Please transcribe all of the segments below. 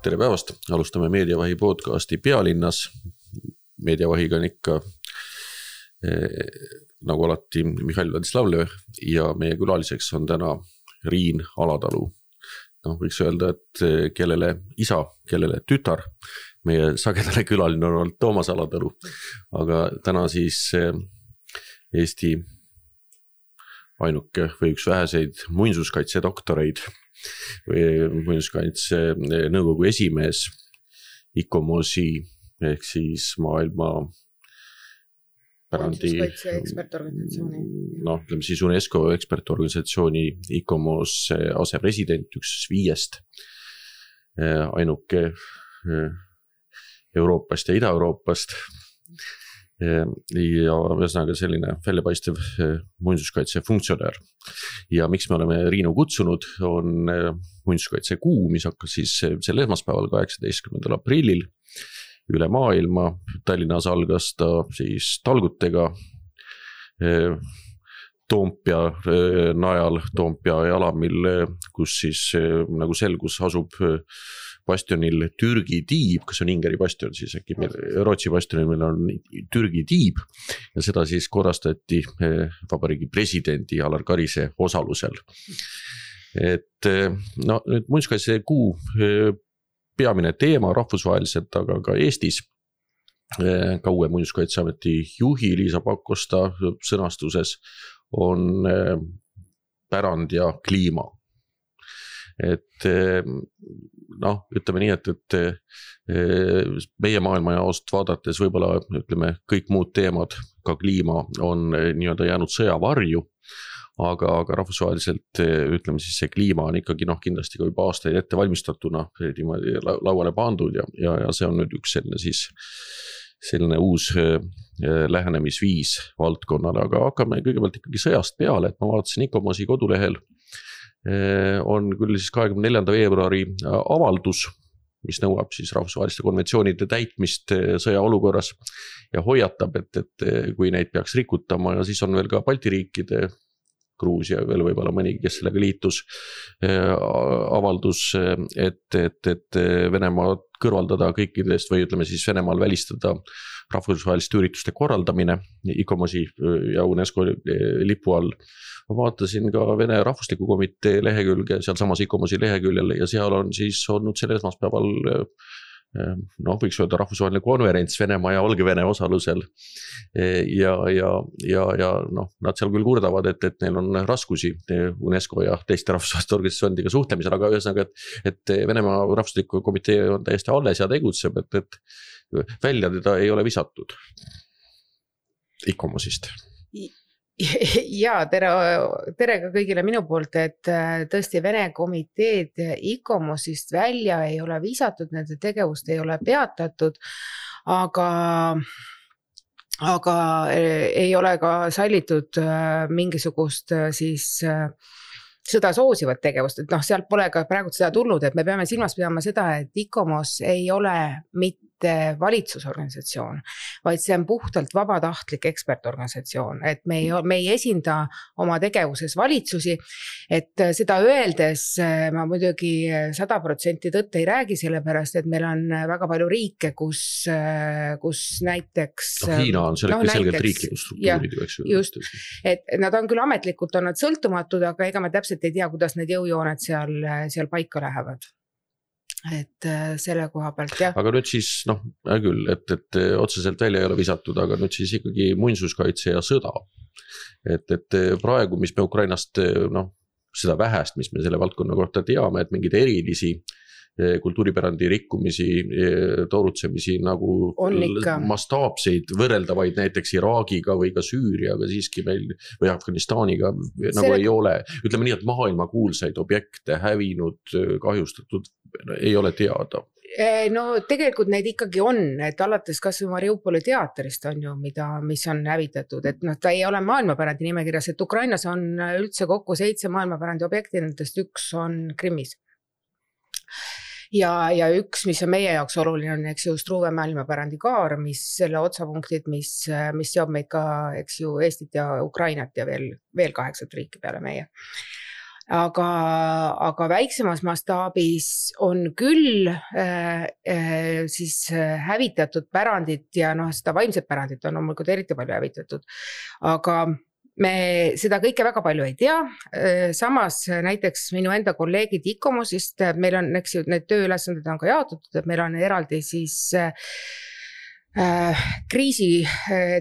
Tere päevast, alustame Meediavahi podcasti Pealinnas. Meediavahiga on ikka nagu alati Mihhail Vladislavlev ja meie külaliseks on täna Riin Alatalu. Võiks öelda, et kellele isa, kellele tütar. Meie sagedale külaline on olnud Toomas Alatalu, aga täna siis Eesti ainuke või üks väheseid muinsuskaitse doktoreid või muinsuskaitse nõukogu esimees ICOMOS-i ehk siis maailma pärandi muinsuskaitse ekspertorganisatsiooni. Ütleme siis UNESCO ekspertorganisatsiooni ICOMOS asepresident, üks 5 ainuke Euroopast ja Ida-Euroopast. Ja ühesõnaga selline väljapaistev muinsuskaitse funktsionär. Ja miks me oleme Riinu kutsunud, on muinsuskaitse kuu, mis hakkas siis sel esmaspäeval 18. aprillil üle maailma. Tallinnas algas ta siis talgutega Toompea najal, Toompea jalamil, kus siis nagu selgus asub bastionil Türgi tiib, kas on Ingeri bastion, siis äkki Rootsi bastionil meil on Türgi tiib ja seda siis korrastati vabariigi presidendi Alar Karise osalusel. Et nüüd muinsuskaitse kuu peamine teema rahvusvaheliselt, aga ka Eestis ka uue muinsuskaitseameti juhi Liisa Pakosta sõnastuses on pärand ja kliima. Et ütleme nii, et meie maailma jaost vaadates võib-olla ütleme kõik muud teemad, ka kliima on nii-öelda jäänud sõjavarju, aga rahvusvaheliselt ütleme siis see kliima on ikkagi kindlasti ka juba aastaid ette valmistatuna lauale pandud ja see on nüüd üks selline uus lähenemisviis valdkonnale, aga hakkame kõigepealt ikkagi sõjast peale, et ma vaatasin ICOMOS-i kodulehel on küll siis 24. veebruari avaldus, mis nõuab siis rahvusvaheliste konventsioonide täitmist sõjaolukorras ja hoiatab, et kui neid peaks rikutama ja siis on veel ka Balti riikide, Gruusia veel võib-olla mõnigi, kes sellega liitus, avaldus, et Venemaa kõrvaldada kõikidest või ütleme siis Venemaal välistada rahvusvaheliste ürituste korraldamine ICOMOS-i ja UNESCO lipu all. Ma vaatasin ka Vene Rahvusliku Komitee lehekülge, seal samas ICOMOS-i leheküljel ja seal on siis olnud sel esmaspäeval võiks öelda rahvusvaheline konverents Venemaa ja Valgevene osalusel ja nad seal küll kurdavad, et neil on raskusi UNESCO ja teiste rahvusvaheliste organisatsioonidega suhtlemisel, aga ühesõnaga, et Venemaa Rahvusliku Komitee on täiesti alles ja tegutseb, et välja teda ei ole visatud ICOMOS-ist. Ja tere ka kõigile minu poolt, et tõesti Vene komiteed ICOMOS-ist välja ei ole visatud, nende tegevust ei ole peatatud, aga ei ole ka sallitud mingisugust siis sõda soosivat tegevust, et sealt pole ka praegu seda tulnud, et me peame silmas pidama seda, et ICOMOS ei ole mitte valitsusorganisatsioon, vaid see on puhtalt vabatahtlik ekspertorganisatsioon, et me ei esinda oma tegevuses valitsusi, et seda öeldes ma muidugi 100% tõtt ei räägi, sellepärast, et meil on väga palju riike, kus näiteks Hiina on selgelt riiklikud struktuurid, just, et nad on küll ametlikult on nad sõltumatud, aga ega me täpselt ei tea, kuidas need jõujooned seal paika lähevad. Et selle koha pealt, jah. Aga nüüd siis, küll, et otseselt välja ei ole visatud, aga nüüd siis ikkagi muinsuskaitse ja sõda. Et praegu, mis me Ukrainast, seda vähest, mis me selle valdkonna kohta teame, et mingid erilisi kultuuripärandi rikkumisi, toorutsemisi nagu mastaapseid võrreldavaid näiteks Iraagiga või ka Süüriaga siiski meil või Afganistaniga nagu ei ole. Ütleme nii, et maailma kuulsaid objekte hävinud, kahjustatud ei ole teada. Tegelikult neid ikkagi on, et alates kas või Mariupoli teatrist on ju, mis on hävitatud, et ta ei ole maailmapärandi nimekirjas, et Ukrainas on üldse kokku 7 maailmapärandi objekti, nendest üks on Krimmis. Ja üks, mis on meie jaoks oluline, on eks ju Struve maailmapärandi kaar, mis selle otsapunktid, mis seob meid ka eks ju Eestit ja Ukrainat ja veel 8 riiki peale meie. aga väiksemas mastaabis on küll siis hävitatud pärandit ja seda vaimset pärandit on loomulikult eriti palju hävitatud, aga me seda kõike väga palju ei tea. Samas näiteks minu enda kolleegid ICOMOS-ist, meil on, eks ju, need tööülesanded on ka jaotatud, et meil on eraldi siis kriisi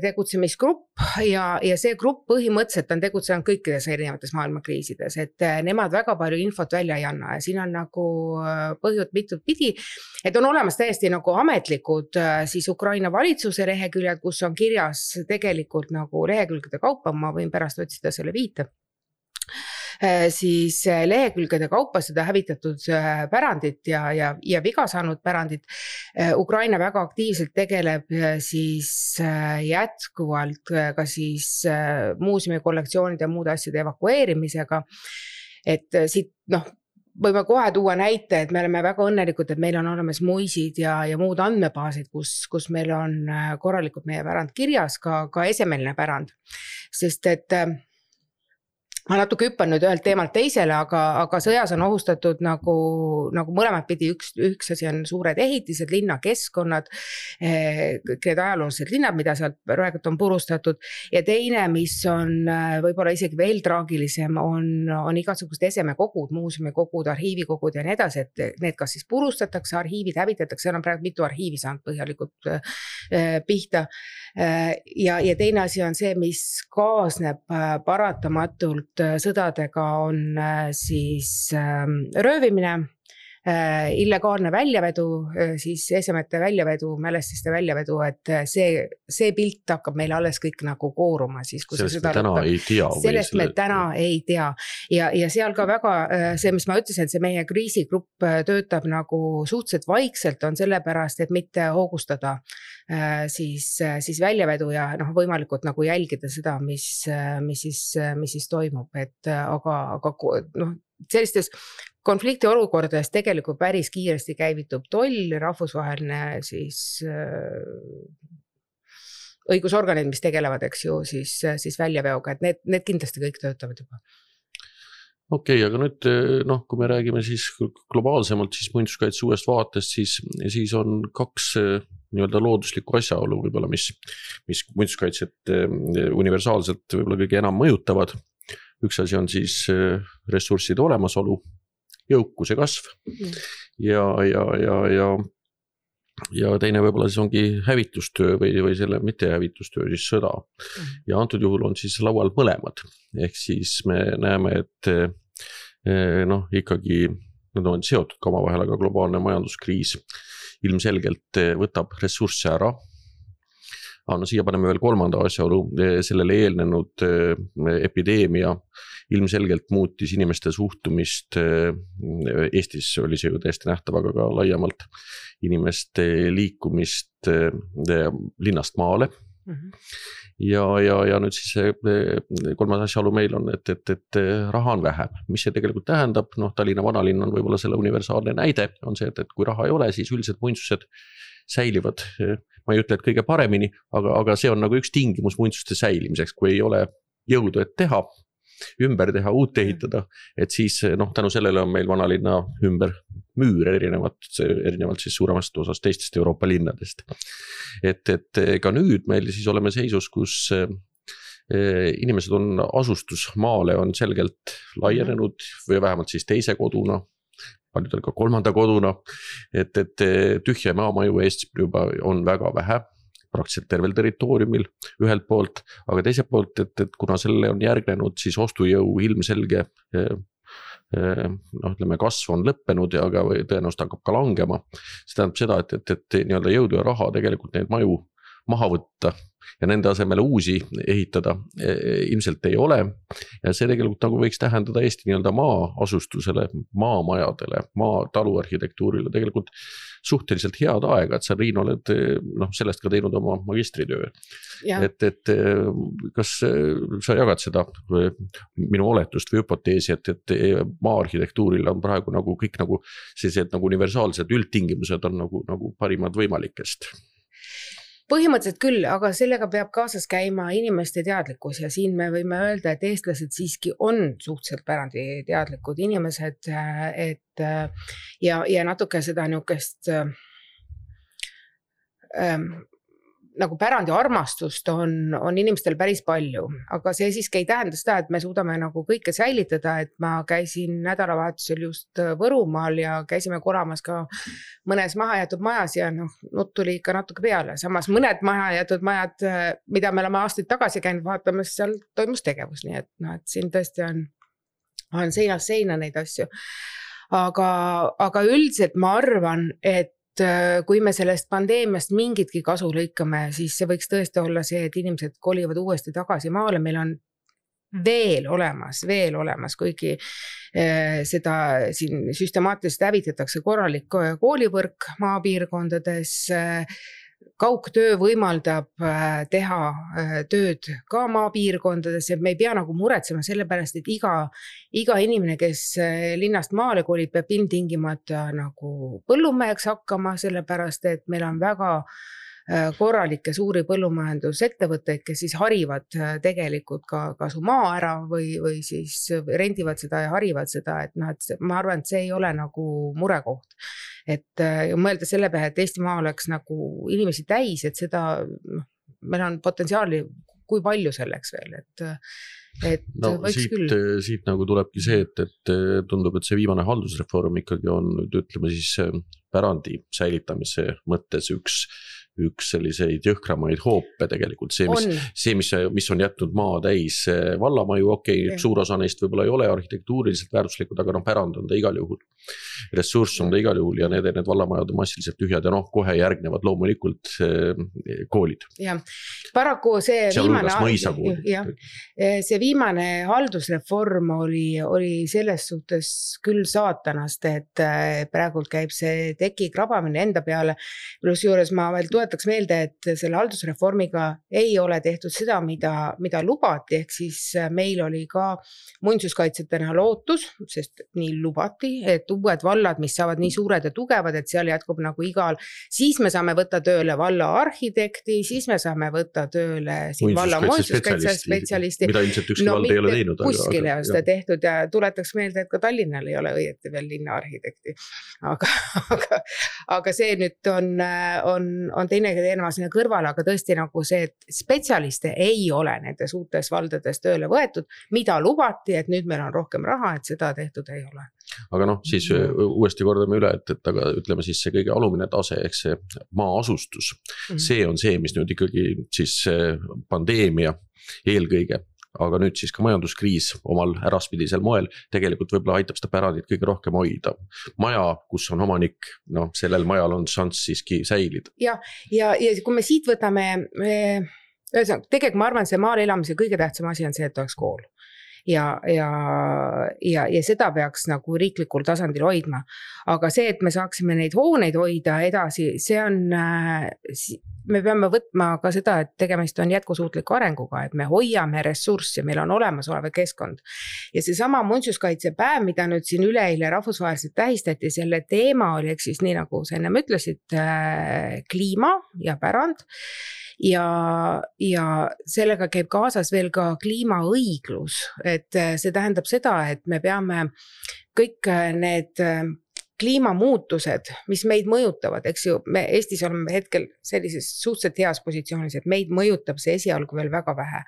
tegutsemisgrupp ja see grupp põhimõtteliselt on tegutsenud kõikides erinevates maailma kriisides, et nemad väga palju infot välja ei anna ja siin on nagu põhjud mitut pidi, et on olemas täiesti nagu ametlikud siis Ukraina valitsuse leheküljed, kus on kirjas tegelikult nagu lehekülgede kaupa, ma võin pärast otsida selle viite, siis lehekülgede kaupa seda hävitatud pärandit ja viga saanud pärandit. Ukraina väga aktiivselt tegeleb siis jätkuvalt ka siis muuseumi kollektsioonide ja muude asjade evakueerimisega, et siit võime kohe tuua näite, et me oleme väga õnnelikud, et meil on olemas muisid ja muud andmebaasid, kus meil on korralikult meie pärand kirjas, ka esemeline pärand, sest et ma natuke hüppan nüüd ühelt teemalt teisele, aga sõjas on ohustatud nagu mõlemad pidi, üks asi on suured ehitised, linnakeskkonnad, kõik need ajaloolised linnad, mida sealt praegu on purustatud, ja teine, mis on võib-olla isegi veel traagilisem, on igasugused esemekogud, muuseumikogud, arhiivikogud ja nii edasi, et need kas siis purustatakse, arhiivid hävitatakse, seal on praegu mitu arhiivi saanud põhjalikult pihta, ja teine asi on see, mis kaasneb paratamatult sõdadega, on siis röövimine, illegaalne väljavedu, siis esemete väljavedu, mälestiste väljavedu, et see pilt hakkab meil alles kõik nagu kooruma. Siis, sellest me täna ei tea. Sellest me täna ei tea. Ja seal ka väga see, mis ma ütlesin, et see meie kriisigrupp töötab nagu suhteliselt vaikselt, on sellepärast, et mitte hoogustada siis väljavedu ja võimalikult nagu jälgida seda, mis siis toimub, et aga sellistes konflikti olukordades tegelikult päris kiiresti käivitub toll, rahvusvaheline siis õigusorganid, mis tegelevad, eks ju, siis väljaveoga, et need kindlasti kõik töötavad juba. Okei, aga nüüd, kui me räägime siis globaalsemalt, siis muinsuskaitse uuest vaatest, siis on kaks nii-öelda looduslikku asjaolu võib-olla, mis muinsuskaitset universaalselt võib-olla kõige enam mõjutavad. Üks asi on siis ressursside olemasolu, jõukuse kasv ja teine võib-olla siis ongi hävitustöö või selle mitte hävitustöö, siis sõda. Ja antud juhul on siis laual mõlemad. Ehk siis me näeme, et ikkagi nad on seotud ka omavahel, aga globaalne majanduskriis ilmselgelt võtab ressursse ära. Siia paneme veel kolmanda asjaolu, sellele eelnenud epideemia ilmselgelt muutis inimeste suhtumist, Eestis oli see ju täiesti nähtav, aga ka laiemalt inimeste liikumist linnast maale. Ja nüüd siis kolmas asjaolu meil on, et raha on vähem. Mis see tegelikult tähendab? Tallinna vanalinn on võib-olla selle universaalne näide, on see, et kui raha ei ole, siis üldiselt muinsused säilivad, ma ei ütle, et kõige paremini, aga see on nagu üks tingimus muinsuste säilimiseks, kui ei ole jõudu, et teha, ümber teha, uut ehitada, et siis tänu sellele on meil vanalinna ümber müür erinevalt siis suuremast osast teistest Euroopa linnadest. Et ka nüüd meil siis oleme seisus, kus inimesed on asustusmaale on selgelt laienenud või vähemalt siis teise koduna, paljudel ka kolmanda koduna, et tühja maamaju Eestis juba on väga vähe, praktiliselt tervel territooriumil ühelt poolt, aga teiselt poolt, et kuna selle on järgnenud siis ostujõu ilmselge kasv on lõppenud ja tõenäoliselt hakkab ka langema. See tähendab seda, et nii-öelda jõudu ja raha tegelikult neid maju maha võtta ja nende asemele uusi ehitada ilmselt ei ole. Ja see tegelikult nagu võiks tähendada Eesti nii-öelda maa-asustusele, maamajadele, taluarhitektuurile tegelikult suhteliselt head aega, et sa, Riin, oled sellest ka teinud oma magistritöö. Et kas sa jagad seda minu oletust või hüpoteesi, et maa-arhitektuuril on praegu nagu kõik nagu sellised nagu universaalsed üldtingimused on nagu parimad võimalikest? põhimõtteliselt küll, aga sellega peab kaasas käima inimeste teadlikkus ja siin me võime öelda, et eestlased siiski on suhteliselt pärandi teadlikud inimesed, et ja natuke seda niukest nagu pärandi armastust on inimestel päris palju, aga see siiski ei tähenda seda, et me suudame nagu kõike säilitada, et ma käisin nädalavahetusel just Võrumaal ja käisime koramas ka mõnes mahajätud majas ja nutt tuli ikka natuke peale. Samas mõned mahajätud majad, mida me oleme aastaid tagasi käinud vaatamas, seal toimus tegevus, nii et siin tõesti on seinast seina neid asju. Aga üldiselt ma arvan, et kui me sellest pandeemiast mingitki kasu lõikame, siis see võiks tõesti olla see, et inimesed kolivad uuesti tagasi maale. Meil on veel olemas, kuigi seda siin süstemaatiliselt hävitatakse korralik koolivõrk maapiirkondades. Kaugtöö võimaldab teha tööd ka maapiirkondades, et me ei pea nagu muretsema selle pärast, et iga inimene, kes linnast maale kolib, peab ilmtingimata nagu põllumeheks hakkama, sellepärast et meil on väga korralikke suuri põllumajandusettevõtteid, kes siis harivad tegelikult ka su maa ära või siis rendivad seda ja harivad seda, et ma arvan, et see ei ole nagu murekoht. Et mõelda selle peale, et Eesti maa oleks nagu inimesi täis, et seda, meil on potentsiaali, kui palju selleks veel, et võiks küll. Siit nagu tulebki see, et tundub, et see viimane haldusreform ikkagi on, ütleme siis pärandi säilitamise mõttes üks selliseid jõhkramaid hoope tegelikult. See, mis on jätnud maa täis vallamaju, suur osa neist võib-olla ei ole arhitektuuriliselt väärtuslikud, aga pärand on ta igal juhul. Ressurss on ta igal juhul ja need vallamajad on massiliselt tühjad ja kohe järgnevad loomulikult koolid. Ja, paraku see viimane haldusreform oli selles suhtes küll saatanast, et praegult käib see teki krabamine enda peale. Plus juures ma veel tuletaks meelde, et selle haldusreformiga ei ole tehtud seda, mida lubati, ehk siis meil oli ka muinsuskaitsetena lootus, sest nii lubati, et uued vallad, mis saavad nii suured ja tugevad, et seal jätkub nagu igal, siis me saame võtta tööle valla arhitekti, siis me saame võtta tööle valla muinsuskaitsespetsialisti. Mida ilmselt ükski vald ei ole teinud. Kuskil ei ole seda tehtud ja tuletaks meelde, et ka Tallinnal ei ole õieti veel linna arhitekti. Aga see nüüd on teine teema sinna kõrvale, aga tõesti nagu see, et spetsialiste ei ole nendes uutes valdades tööle võetud, mida lubati, et nüüd meil on rohkem raha, et seda tehtud ei ole. Aga siis uuesti kordame üle, et aga ütleme siis see kõige alumine tase, ehk see maa asustus, see on see, mis nüüd ikkagi siis pandeemia eelkõige, aga nüüd siis ka majanduskriis omal äraspidisel moel tegelikult võib-olla aitab seda pärandit kõige rohkem hoida. Maja, kus on omanik, sellel majal on šanss siiski säilida. Ja kui me siit võtame, tegelikult ma arvan, see maal elamise kõige tähtsam asi on see, et oleks kool. Ja seda peaks nagu riiklikul tasandil hoidma. Aga see, et me saaksime neid hooneid hoida edasi, see on, me peame võtma ka seda, et tegemist on jätkusuutliku arenguga, et me hoiame ressurssi, meil on olemas olev keskkond. Ja see sama muinsuskaitsepäev, mida nüüd siin üleeile rahvusvaheliselt tähistati, selle teema oli, eks siis nii nagu sa ennem ütlesid, kliima ja pärand. Ja sellega käib kaasas veel ka kliimaõiglus, et see tähendab seda, et me peame kõik need kliimamuutused, mis meid mõjutavad, eks ju, me Eestis oleme hetkel sellises suhteliselt heas positsioonis, et meid mõjutab see esialgu veel väga vähe,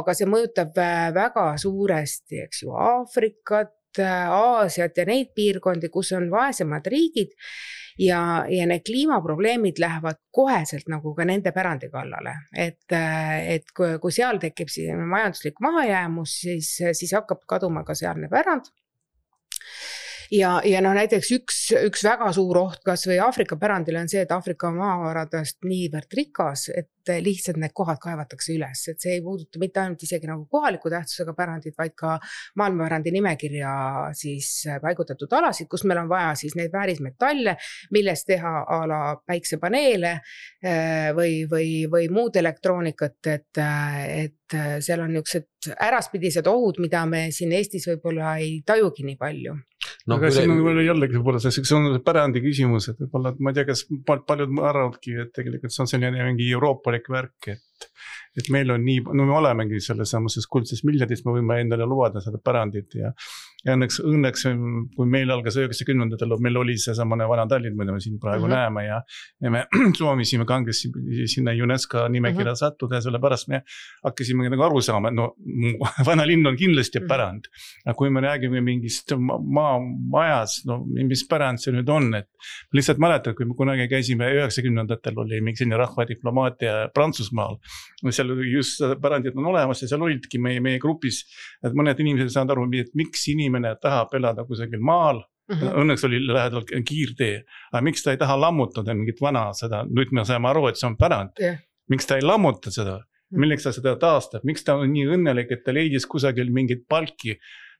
aga see mõjutab väga suuresti, eks ju, Aafrikat, Aasiat ja neid piirkondi, kus on vaesemad riigid ja need kliimaprobleemid lähevad koheselt nagu ka nende pärandi kallale, et kui seal tekib majanduslik mahajäämus, siis hakkab kaduma ka sealne pärand. Ja näiteks üks väga suur oht kas või Aafrika pärandile on see, et Aafrika maavaradest niivõrd rikas, et lihtsalt need kohad kaevatakse üles, et see ei puuduta mitte ainult isegi nagu kohaliku tähtsusega pärandid, vaid ka maailmapärandi nimekirja siis paigutatud alasid, kus meil on vaja siis neid väärismetalle, millest teha a la päiksepaneele või muud elektroonikat, et seal on niisugused äraspidised ohud, mida me siin Eestis võib-olla ei tajugi nii palju. No, aga siin on jällegi võib-olla see on pärandi küsimus, et võib-olla, ma ei tea, kas paljud arvavadki, et tegelikult see on selline mingi euroopalik värk, et meil on nii, no me olemegi selles samases kuldses miljardis, me võime endale lubada seda pärandit ja õnneks, kui meil algas 90-ndatel, meil oli see samane vana Tallinn, mida me siin praegu näeme ja me soovisime kangesti sinna UNESCO nimekirja sattuda ja sellepärast me hakkasime nagu aru saama, no vana linn on kindlasti pärand. Aga kui me räägime mingist majas, no mis pärand see nüüd on, et lihtsalt mäletad, kui me kunagi käisime 90-ndatel oli mingi selline rahvadiplomaatia Prantsusmaal, seal just pärandid on olemas ja seal olidki meie grupis, et mõned inimesed saavad aru, et miks inimene tahab elada kusagil maal, õnneks oli lähedal kiirtee, aga miks ta ei taha lammutada mingit vana seda, nüüd me saame aru, et see on pärand, miks ta ei lammuta seda, milleks ta seda taastab, miks ta on nii õnnelik, et ta leidis kusagil mingit palki,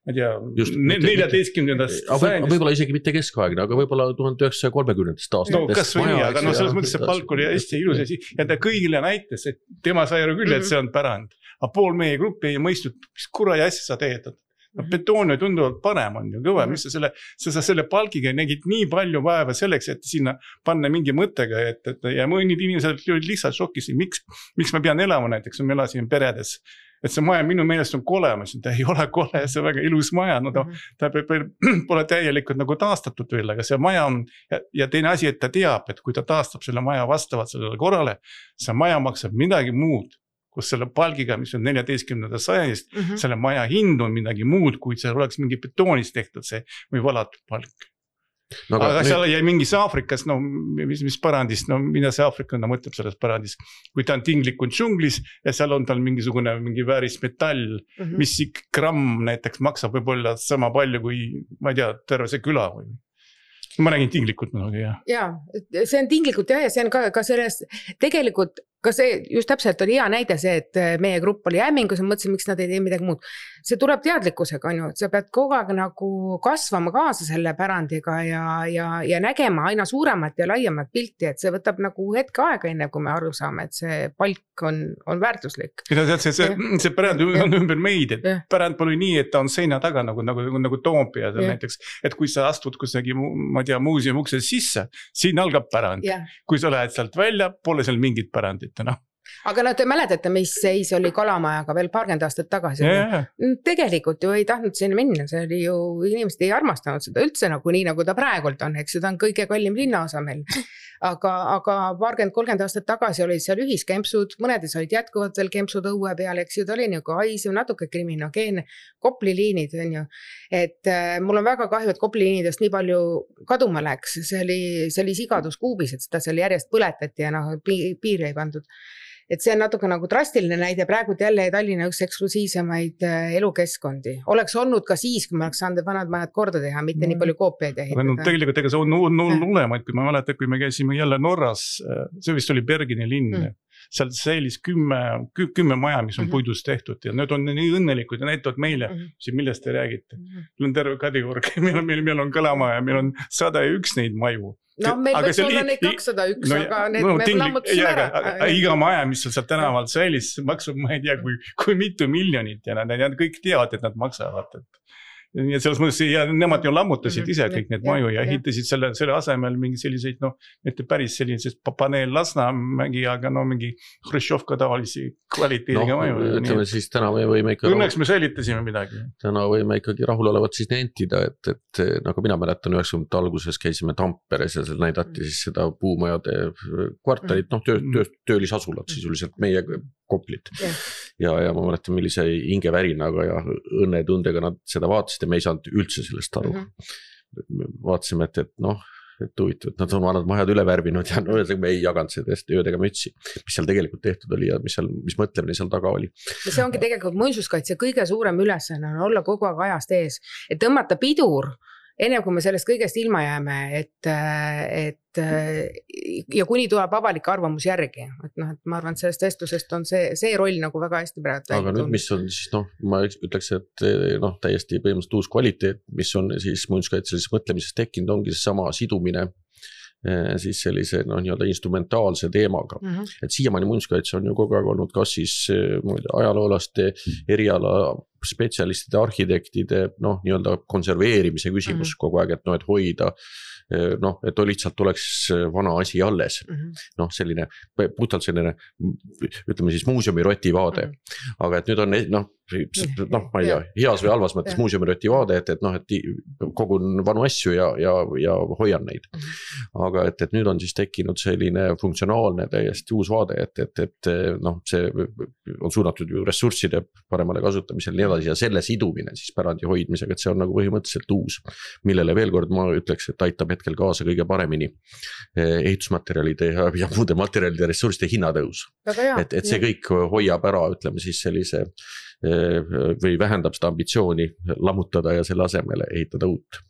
ma tea, 14. Võib-olla isegi mitte keskaegne, aga võib-olla 1930. aastatest. No kas või nii, aga no selles mõttes see palk oli hästi ilus ja ta kõigile näitas, et tema sai aru küll, et see on pärand. Aga pool meie gruppi ei mõistnud, mis kuradi asja sa teed. No, betoon on tunduvalt parem on ju kõva, mis sa selle palgiga nägid nii palju vaeva selleks, et sinna panna mingi mõttega, ja mõnid inimesed olid lihtsalt šokis, miks ma pean elama näiteks, me elasime peredes. Et see maja minu meelest on kole, ma ütlesin, ta ei ole kole, see on väga ilus maja, no ta pole täielikult nagu taastatud veel, aga see maja on, ja teine asi, et ta teab, et kui ta taastab selle maja vastavalt sellele korrale, see maja maksab midagi muud, kus selle palgiga, mis on 14. sajandist, selle maja hind on midagi muud, kui see oleks mingi betoonist tehtud see või valatud palk. No, aga seal jäi mingis Aafrikas, no mis pärandist, no mida see Aafrikana mõtleb selles pärandist, kui ta on tinglikult džunglis ja seal on tal mingi vääris metall, mis gramm näiteks maksab võib-olla sama palju kui, ma ei tea, terve see küla või. Ma räägin tinglikult muidugi, jah. Jaa, see on tinglikult ja see on ka selles, tegelikult ka see just täpselt oli hea näide see, et meie grupp oli hämmingus ja mõtlesin, miks nad ei tee midagi muud. See tuleb teadlikkusega, on ju, et sa pead kogu aeg nagu kasvama kaasa selle pärandiga ja nägema aina suuremat ja laiemat pilti, et see võtab nagu hetke aega enne, kui me aru saame, et see palk on väärtuslik. See pärand on ümber meid, et pärand pole nii, et ta on seina taga nagu Toompea näiteks, et kui sa astud kusagi, ma tea, muuseumi ukse sisse, siin algab pärand. Kui sa lähed sealt välja, pole seal mingit pärandit. No. Aga te mäletate, mis seis oli Kalamajaga veel paarkümmend aastat tagasi. Tegelikult ju ei tahtnud sinna minna, see oli ju, inimesed ei armastanud seda üldse nagu nii, nagu ta praegult on, eks seda on kõige kallim linnaosa meil. Aga 30 aastat tagasi olid seal ühiskempsud, mõnedes olid jätkuvalt veel kempsud õue peal, eks ju, ta oli nagu haisev, natuke kriminogeenne, Kopli liinid on ju, et mul on väga kahju, et Kopli liinidest nii palju kaduma läks, see oli sigadus kuubis, et seda seal järjest põletati ja piiri ei pandud. Et see on natuke nagu drastiline näide, praegu jälle Tallinna üks eksklusiivsemaid elukeskkondi. Oleks olnud ka siis, kui me oleks saanud vanad majad korda teha, mitte nii palju koopiaid ehitada. No, tegelikult ega see on ulemaid, kui ma mäletan, kui me käisime jälle Norras, see vist oli Bergeni linn, seal säilis 10 maja, mis on puidust tehtud ja need on nii õnnelikud ja näitavad meile, millest te räägite. Meil on terve Kadriorg, meil on Kalamaja, meil on 101 neid maju. No meil võiks olla neid 201, aga need me lammutasime ära. Iga maja, mis seal tänavalt säilis, maksab, ma ei tea, kui mitu miljonit ja nad kõik teavad, et nad maksavad. Ja selles mõttes, ja nemad ju lammutasid ise kõik need maju ja ehitasid selle asemel mingi selliseid, mitte päris sellised paneel Lasnamägi, aga mingi Hruštšovka tavalisi kvaliteediga maju. Ütleme siis täna me võime ikka... Õnneks me säilitasime midagi. Täna võime ikkagi rahulolevat siis nentida, et nagu mina mäletan 90. alguses käisime Tamperes ja seal näidati siis seda puumajade kvartalit, töölisasulat siis üldiselt meie Koplit. Ja ma mäletan, millise hingevärinaga ja õnnetundega nad seda vaatasid ja me ei saanud üldse sellest aru. Vaatasime, et huvitav, et nad on vanad majad üle värvinud ja me ei jaganud sellest öödega mütsi, mis seal tegelikult tehtud oli ja mis mõtlemine seal taga oli. Ja see ongi tegelikult muinsuskaitse kõige suurem ülesanne on olla kogu aeg ajast ees, et tõmmata pidur, enne kui me sellest kõigest ilma jääme, ja kuni tuleb avalik arvamus järgi, et ma arvan, et sellest vestlusest on see roll nagu väga hästi praegu. Aga nüüd, mis on siis, ma ütleks, et täiesti põhimõtteliselt uus kvaliteet, mis on siis muinsuskaitselises mõtlemises tekkinud, ongi sama sidumine siis sellise nii-öelda instrumentaalse teemaga. Et siiamaani muinsuskaitse on ju kogu aeg olnud kas siis ajaloolaste, eriala spetsialistide, arhitektide nii-öelda konserveerimise küsimus kogu aeg, et hoida et lihtsalt oleks vana asi alles. Selline, puhtalt selline, ütleme siis muuseumi-roti vaade. Aga et nüüd on, ma ei tea, heas või halvas mõttes muuseumi-roti vaade, et kogun vanu asju ja hoian neid. Aga et nüüd on siis tekkinud selline funktsionaalne täiesti uus vaade, et see on suunatud ju ressursside paremale kasutamisel nii edasi ja selle sidumine siis pärandi hoidmisega, et see on nagu põhimõtteliselt uus, millele veel kord ma ütleks, et aitab hetkel kaasa kõige paremini ehitusmaterjalide ja muude materjalide ressursside hinnatõus. Et see kõik hoiab ära, ütleme siis sellise või vähendab seda ambitsiooni lammutada ja selle asemele ehitada uut.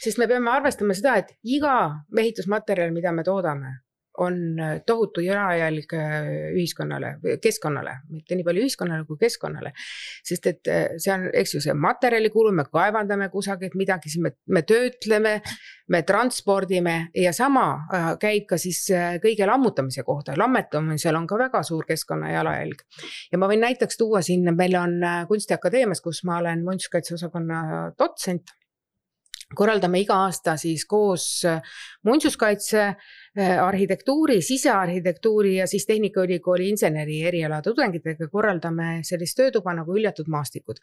Sest me peame arvestama seda, et iga ehitusmaterjal, mida me toodame, on tohutu jalajälg ühiskonnale, keskkonnale, mitte nii palju ühiskonnale kui keskkonnale. Sest et see on, eks ju, see materjalikulu, me kaevandame kusagilt midagi, me töötleme, me transpordime ja sama käib ka siis kõige lammutamise kohta. Lammetamisel on ka väga suur keskkonna jalajälg. Ja ma võin näiteks tuua siin, meil on Kunstiakadeemias, kus ma olen muinsuskaitseosakonna dotsent. Korraldame iga aasta siis koos muinsuskaitse, arhitektuuri, sisearhitektuuri ja siis Tehnikaülikooli inseneri eriala tudengitega korraldame sellist töötuba nagu hüljatud maastikud.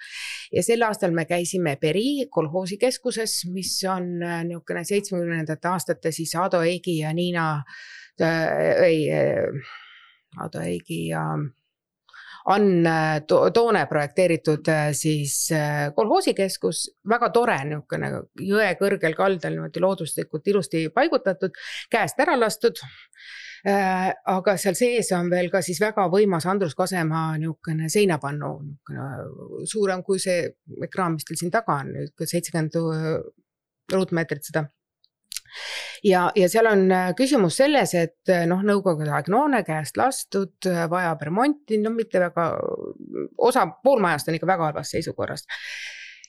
Ja sel aastal me käisime Peri kolhoosikeskuses, mis on niisugune 70. aastate siis Ado Eigi ja Niina Ado Eigi ja Ann Toone projekteeritud siis kolhoosikeskus, väga tore niisugune jõe kõrgel kaldal looduslikult ilusti paigutatud, käest ära lastud, aga seal sees on veel ka siis väga võimas Andrus Kasemaa niisugune seinapannu, suurem kui see ekraan, mis teil siin taga on, 70 ruutmeetrit seda. Ja seal on küsimus selles, et nõukogude aeg noone käest lastud, vajab remonti, mitte väga, pool majast on ikka väga halvas seisukorras.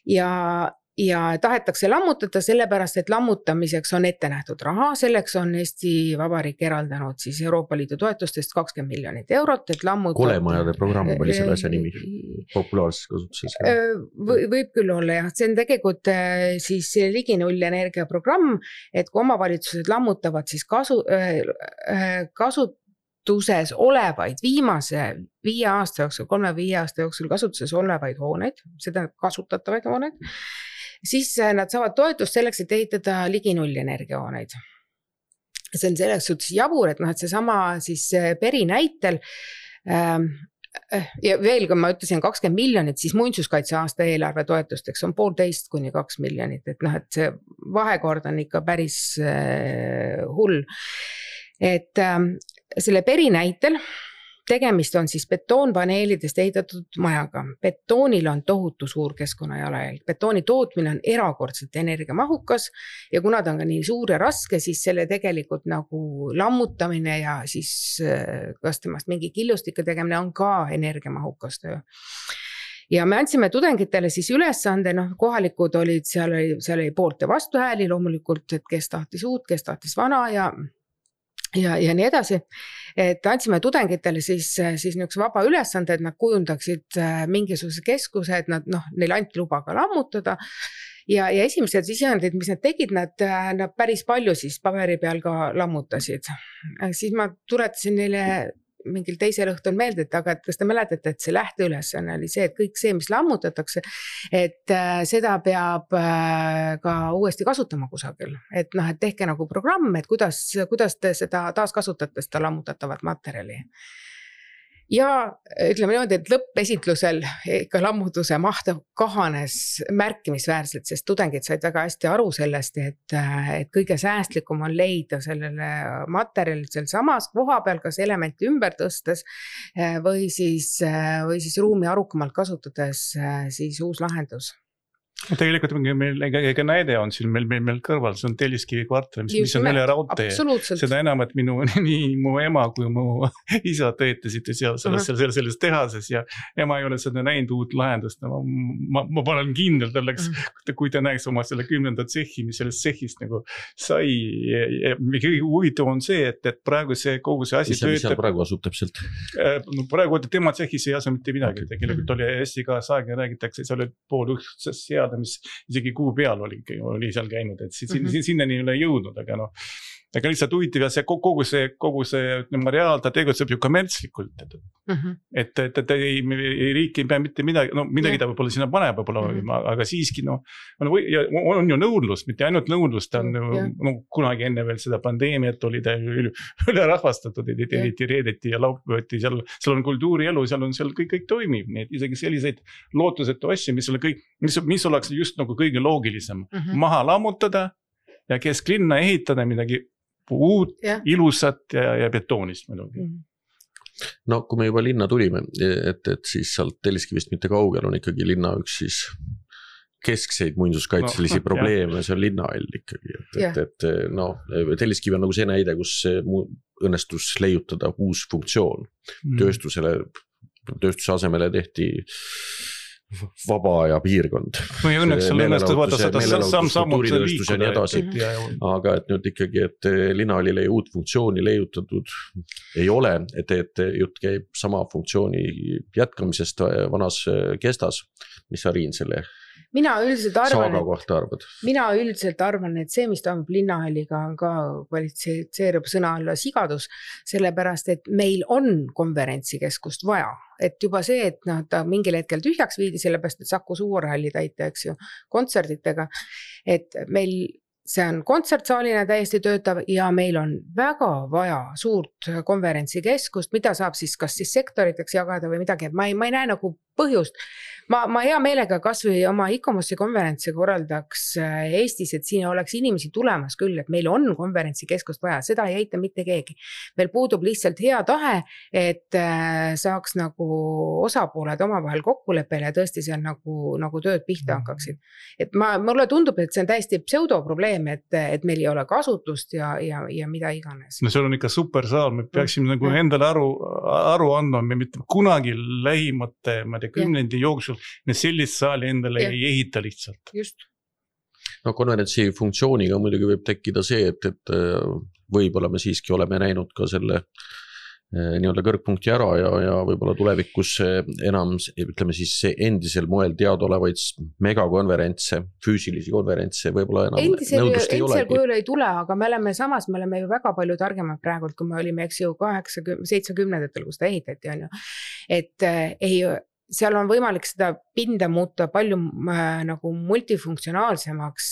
Ja tahetakse lammutada sellepärast, et lammutamiseks on ette nähtud raha, selleks on Eesti Vabariik eraldanud siis Euroopa Liidu toetustest 20 miljonit eurot, et lammutada. Kolemajade programm oli selle asja nimi, populaarses kasutuses. Võib küll olla, jah. See on tegelikult siis ligi null energia programm, et kui omavalitsused lammutavad siis kasutuses olevaid viimase 5 aasta jooksul, 3-5 aasta jooksul kasutuses olevaid hooneid, seda kasutatavaid hooneid, siis nad saavad toetust selleks, et ehitada ligi null energiahooneid. See on selleks suhtes jabur, et see sama siis Peri näitel ja veel, kui ma ütlesin 20 miljonit, siis muinsuskaitse aasta eelarve toetusteks on 1,5 kuni 2 miljonit, et see vahekord on ikka päris hull. Et selle Peri näitel tegemist on siis betoonpaneelidest ehitatud majaga. Betoonil on tohutu suur keskkonnajalajälg. Betooni tootmine on erakordselt energiamahukas ja kuna ta on ka nii suur ja raske, siis selle tegelikult nagu lammutamine ja siis kas temast mingi killustike tegemine on ka energiamahukas töö. Ja me andsime tudengitele siis ülesande, kohalikud olid, seal oli poolt ja vastuhääli loomulikult, et kes tahtis uut, kes tahtis vana ja nii edasi, et andsime tudengitele siis niisuguse vaba ülesande, et nad kujundaksid mingisuguse keskuse, et neil anti luba ka lammutada ja esimesed sisendid, mis nad tegid, nad päris palju siis paberi peal ka lammutasid. Siis ma tuletasin neile mingil teisel õhtul meelde, et aga kas te mäletate, et see lähteülesanne oli see, et kõik see, mis lammutatakse, et seda peab ka uuesti kasutama kusagil. Et tehke nagu programm, et kuidas te seda taaskasutate, seda lammutatavat materjali. Ja ütleme niimoodi, et lõppesitlusel ikka lammutuse maht kahanes märkimisväärselt, sest tudengid said väga hästi aru sellest, et kõige säästlikum on leida sellele materjalil seal samas koha peal, kas elementi ümber tõstes või siis ruumi arukamalt kasutades siis uus lahendus. Tegelikult meil ega näide on siin meil kõrval, see on Telliskivi kvartal, mis on üle raudtee. Seda enam, et nii mu ema kui mu isa töötasid selles tehases ja ema ei ole seda näinud uut lahendust. Ma panen kindel tälleks, kui ta näeks oma selle 10. tsehhi, mis sellest tsehhist nagu sai. Kõige huvitav on see, et praegu kogu see asi töötab. Mis seal praegu asub täpselt? Praegu tema tsehhis ei asu mitte midagi. Tegelikult oli hästi ka saagi räägitakse, see oli pool ühtsest seada, mis isegi kuu peal oli seal käinud, et sinnani ei ole jõudnud, aga aga lihtsalt huvitav ja kogu see reaal, ta tegutseb ju kommertslikult, et riik ei pea mitte midagi, midagi ta võib-olla sinna paneb, aga siiski on ju nõudlus, mitte ainult nõudlus, ta on kunagi enne veel seda pandeemiat oli ta üle rahvastatud, reedeti ja laupäevati, seal on kultuurielu, seal kõik toimib, nii et isegi selliseid lootusetu asju, mis oleks just nagu kõige loogilisem, maha lammutada ja kesklinna ehitada midagi uut, ilusat ja betoonist muidugi. No kui me juba linna tulime, et siis sealt Telliskivist mitte kaugel on ikkagi linna üks siis keskseid muinsuskaitselisi probleeme, see on linnahall ikkagi. Et Telliskivi on nagu see näide, kus õnnestus leiutada uus funktsioon. Tööstuse asemele tehti vaba aja piirkond. Või õnneks seal õnnestus vaata seda sammud liikuda. Aga et nüüd ikkagi, et linnahallile uut funktsiooni leiutatud ei ole, et jutt käib sama funktsiooni jätkamisest vanas kestas. Mis sa, Riin, selle saaga kohta arvad? Mina üldiselt arvan, et see, mis toimub linnahalliga, on ka kvalifitseerub sõna alla sigadus, sellepärast, et meil on konverentsikeskust vaja. Et juba see, et ta mingil hetkel tühjaks viidi, sellepärast, et Saku Suurhalli täita, eks ju, kontserditega, et meil see on kontsertsaalina täiesti töötav ja meil on väga vaja suurt konverentsikeskust, mida saab siis kas siis sektoriteks jagada või midagi, et ma ei näe nagu põhjust. Ma hea meelega kas või oma ICOMOS-i konverentsi korraldaks Eestis, et siin oleks inimesi tulemas küll, et meil on konverentsikeskust vaja, seda ei eita mitte keegi. Meil puudub lihtsalt hea tahe, et saaks nagu osapooled omavahel kokkuleppele ja tõesti seal nagu tööd pihta hakkaksid. Et mulle tundub, et see on täiesti pseudoprobleem, et meil ei ole kasutust ja mida iganes. No see on ikka super saal, me peaksime nagu endale aru andma, me mitte kunagi lähimate, ma tea, kümnendi jooksul me sellist saali endale ei ehita lihtsalt. Just. No konverentsi funktsiooniga muidugi võib tekkida see, et võib-olla me siiski oleme näinud ka selle nii-öelda kõrgpunkti ära ja võib-olla tulevikus enam, ütleme siis endisel moel teadolevaid megakonverentse, füüsilisi konverentse võib-olla enam nõudlust ei olegi. Endisel kujul ei tule, aga me oleme ju väga palju targemad praegult, kui me olime, eks ju, 70-ndatel, kus ta ehitati, on ju. Et seal on võimalik seda pinda muuta palju nagu multifunktsionaalsemaks,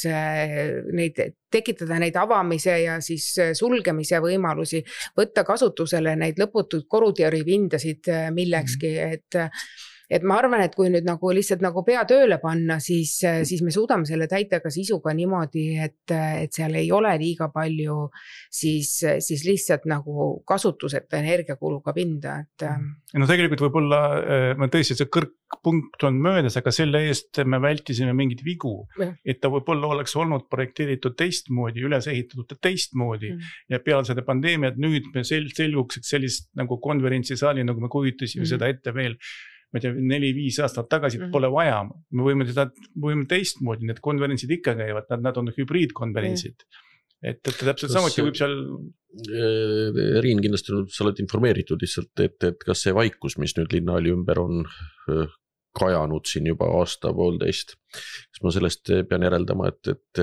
tekitada neid avamise ja siis sulgemise võimalusi, võtta kasutusele neid lõputud korutjäripindasid millekski, et ma arvan, et kui nüüd nagu lihtsalt nagu pea tööle panna, siis me suudame selle täita ka sisuga niimoodi, et seal ei ole liiga palju siis lihtsalt nagu kasutuseta energiakuluga pinda. No tegelikult võib-olla me tõesti see kõrgpunkt on möödas, aga selle eest me vältisime mingid vigu, et ta võib-olla oleks olnud projekteeritud teistmoodi, üles ehitatud teistmoodi ja peale seda pandeemiat nüüd me selguks, et sellist nagu konverentsisaali, nagu me kujutasime seda ette veel, ma tea, 4-5 aastat tagasi pole vaja. Me võime teistmoodi, need konverentsid ikka käivad, nad on hübriidkonverentsid. Et täpselt samuti võib seal... Riin, kindlasti sa oled informeeritud lihtsalt, et kas see vaikus, mis nüüd linnahalli ümber on kajanud siin juba aasta-poolteist, kas ma sellest pean järeldama, et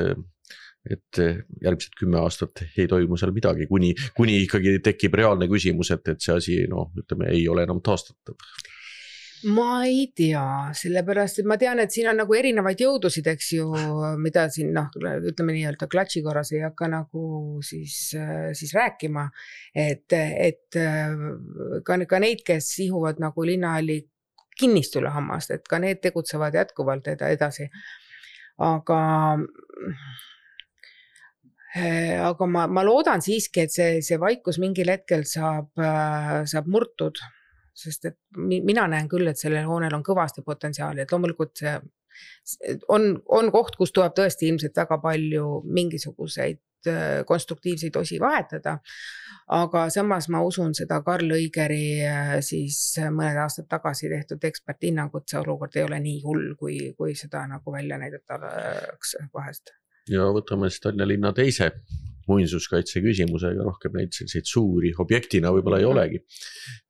järgmised 10 aastat ei toimu seal midagi, kuni ikkagi tekib reaalne küsimus, et see asi, ütleme, ei ole enam taastatav. Ma ei tea, sellepärast, et ma tean, et siin on nagu erinevaid jõudusid, eks ju, mida siin, ütleme nii-öelda klatši korras ei hakka nagu siis rääkima, et ka neid, kes ihuvad nagu linnahalli kinnistule hammast, et ka need tegutsevad jätkuvalt edasi. Aga ma loodan siiski, et see vaikus mingil hetkel saab murtud. Sest et mina näen küll, et sellel hoonel on kõvasti potentsiaali, et loomulikult see on koht, kus tuleb tõesti ilmselt väga palju mingisuguseid konstruktiivseid osi vahetada, aga samas ma usun seda Karl Õigeri siis mõned aastad tagasi tehtud eksperthinnangut, see olukord ei ole nii hull, kui seda nagu välja näidatakse vahest. Ja võtame siis Tallinna linna teise muinsuskaitse küsimusega, rohkem neid selliseid suuri objektina võib-olla ei olegi.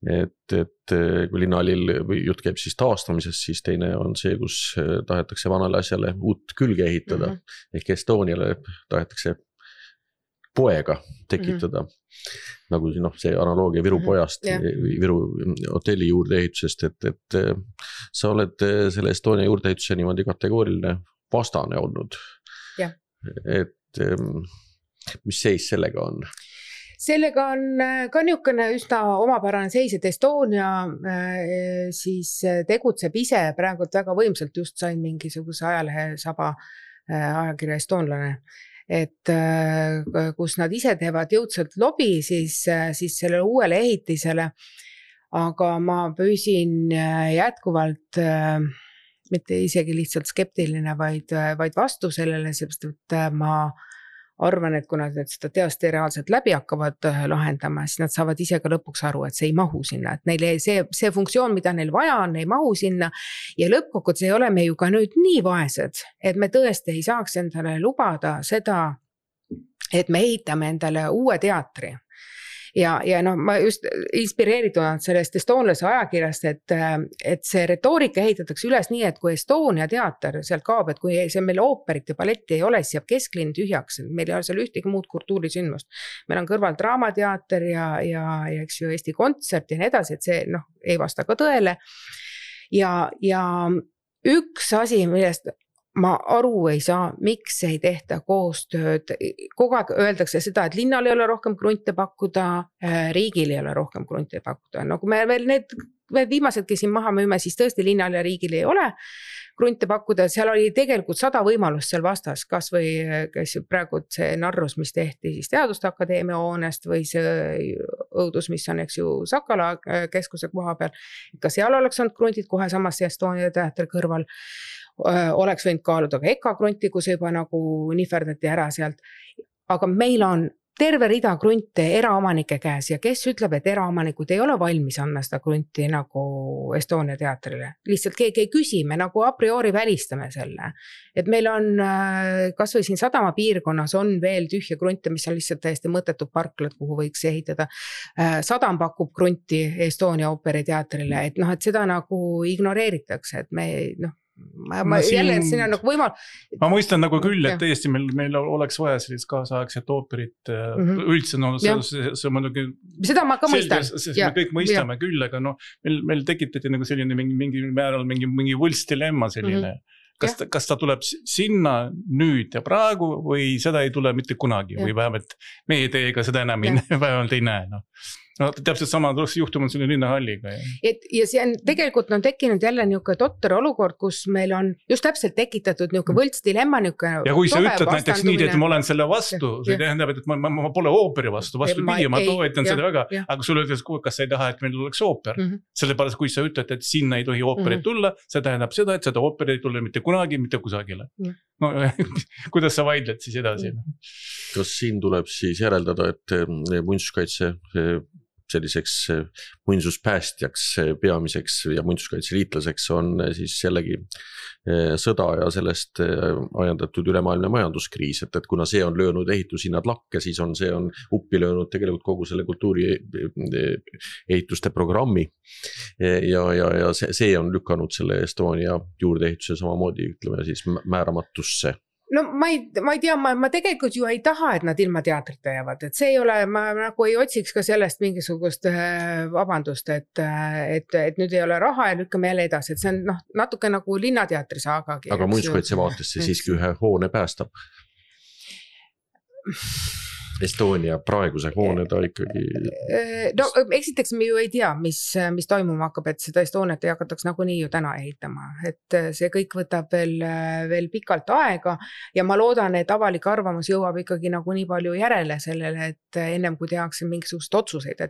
Et kui linnaalil jutt käib siis taastamisest, siis teine on see, kus tahetakse vanale asjale uut külge ehitada, ehk Estoniale tahetakse poega tekitada, nagu see analoogia Viru pojast, Viru hotelli juurdeehitusest, et sa oled selle Estonia juurdeehituse niimoodi kategooriline vastane olnud. Et mis seis sellega on? Sellega on ka niisugune üsna omapärane seis, et Estonia siis tegutseb ise praegult väga võimsalt, just sain mingisuguse ajalehe saba ajakirja Estonlane, et kus nad ise teevad jõudsalt lobi siis sellele uuele ehitisele, aga ma püsin jätkuvalt mitte isegi lihtsalt skeptiline, vaid vastu sellele, seepärast, et ma arvan, et kui nad seda teost reaalselt läbi hakkavad lahendama, siis nad saavad ise ka lõpuks aru, et see ei mahu sinna, et neile see funktsioon, mida neil vaja on, ei mahu sinna ja lõppkokkuvõttes ei ole me ju ka nüüd nii vaesed, et me tõesti ei saaks endale lubada seda, et me ehitame endale uue teatri. Ja ma just inspireeritud sellest Estonlase ajakirjast, et see retoorika ehitatakse üles nii, et kui Estonia teater sealt kaob, et kui see meil ooperit ja balletti ei ole, siis jääb kesklinn tühjaks, meil ei ole seal ühtegi muud kultuurisündmust. Meil on kõrval draamateater ja eks ju Eesti Kontsert ja nii edasi, et see ei vasta ka tõele. Ja üks asi, millest ma aru ei saa, miks ei tehta koostööd. Kogu aeg öeldakse seda, et linnal ei ole rohkem krunte pakkuda, riigil ei ole rohkem krunte pakkuda. No kui me veel need viimasedki siin maha müüme, siis tõesti linnal ja riigil ei ole krunte pakkuda. Seal oli tegelikult 100 võimalust seal vastas, kas või praegu see narrus, mis tehti siis Teaduste Akadeemia hoonest või see õudus, mis on eks ju Sakala keskuse koha peal. Ka seal oleks olnud kruntid kohe samas Estonia teatri kõrval. Oleks võinud kaaluda ka Eka krunti, kus juba nagu nihverdati ära sealt. Aga meil on terve rida krunte eraomanike käes ja kes ütleb, et eraomanikud ei ole valmis anna seda krunti nagu Estonia teatrile. Lihtsalt keegi ei küsi, me nagu a priori välistame selle. Et meil on, kas või siin Sadama piirkonnas on veel tühja krunte, mis on lihtsalt täiesti mõttetud parklad, kuhu võiks ehitada. Sadam pakub krunti Estonia ooperiteatrile, et et seda nagu ignoreeritakse, et me jälle, et siin on nagu võimal... Ma mõistan nagu küll, et tõesti meil oleks vaja sellist kaasaegset ooperit üldse, see muidugi... Seda ma ka mõistan. Me kõik mõistame küll, aga meil tekitati nagu selline mingi määral mingi võltsdilemma selline. Kas ta tuleb sinna nüüd ja praegu või seda ei tule mitte kunagi või vähemalt meie teiega seda enam vähemalt ei näe. Täpselt sama juhtum on selle linnahalliga. Ja see on tegelikult tekkinud jälle niisugune totter olukord, kus meil on just täpselt tekitatud niisugune võltsdilemma. Ja kui sa ütled näiteks nii, et ma olen selle vastu, see tähendab, et ma pole ooperi vastu, vastupidi, ma toetan seda väga, aga sulle ütles, kas sa ei taha, et meil oleks ooper. Sellepärast, kui sa ütled, et sinna ei tohi ooperit tulla, see tähendab seda, et seda ooperit ei tule mitte kunagi, mitte kusagile. Kuidas sa vaidled siis edasi? Kas siin tuleb siis järeldada, et muinsuskaitse selliseks muinsuspäästjaks peamiseks ja muinsuskaitseliitlaseks on siis jällegi sõda ja sellest ajendatud ülemaailmne majanduskriis, et kuna see on löönud ehitushinnad lakke, siis see on uppi löönud tegelikult kogu selle kultuuri ehituste programmi ja see on lükanud selle Estonia juurdeehituse samamoodi, ütleme siis määramatusse. Ma ei tea, ma tegelikult ju ei taha, et nad ilma teatrita jäävad, et see ei ole, ma nagu ei otsiks ka sellest mingisugust vabandust, et nüüd ei ole raha ja lükkame jälle edasi, et see on natuke nagu linnateatri saagagi. Aga muinsuskaitse vaatesse siiski ühe hoone päästab. Estonia praeguse hoone ta ikkagi... Esiteks me ju ei tea, mis toimuma hakkab, et seda Estoniat ei hakataks nagunii ju täna ehitama, et see kõik võtab veel pikalt aega ja ma loodan, et avalik arvamus jõuab ikkagi nagu nii palju järele sellele, et ennem kui tehakse mingisugust otsuseid,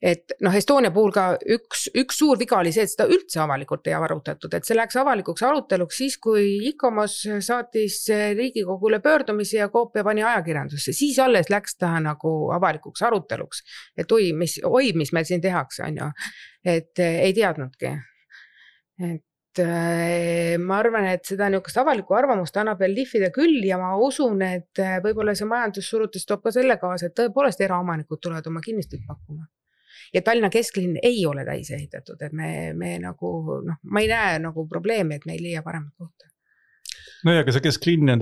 et noh, Estonia puhul ka üks suur viga oli see, et seda üldse avalikult ei arutatud, et see läks avalikuks aruteluks siis, kui ICOMOS saatis Riigikogule pöördumisi ja koopia pani ajakirjandusse, siis alles läks ta nagu avalikuks aruteluks, et mis meil siin tehakse, on ju, et ei teadnudki. Et ma arvan, et seda niisugust avalikku arvamust annab veel lihvida küll ja ma usun, et võib-olla see majandussurutis toob ka selle kaasa, et tõepoolest eraomanikud tulevad oma kinnistuid pakkuma. Ja Tallinna kesklinn ei ole täis ehitatud, et me nagu, noh, ma ei näe nagu probleemi, et me ei leia paremat kohta. No ja ka see kesklinn,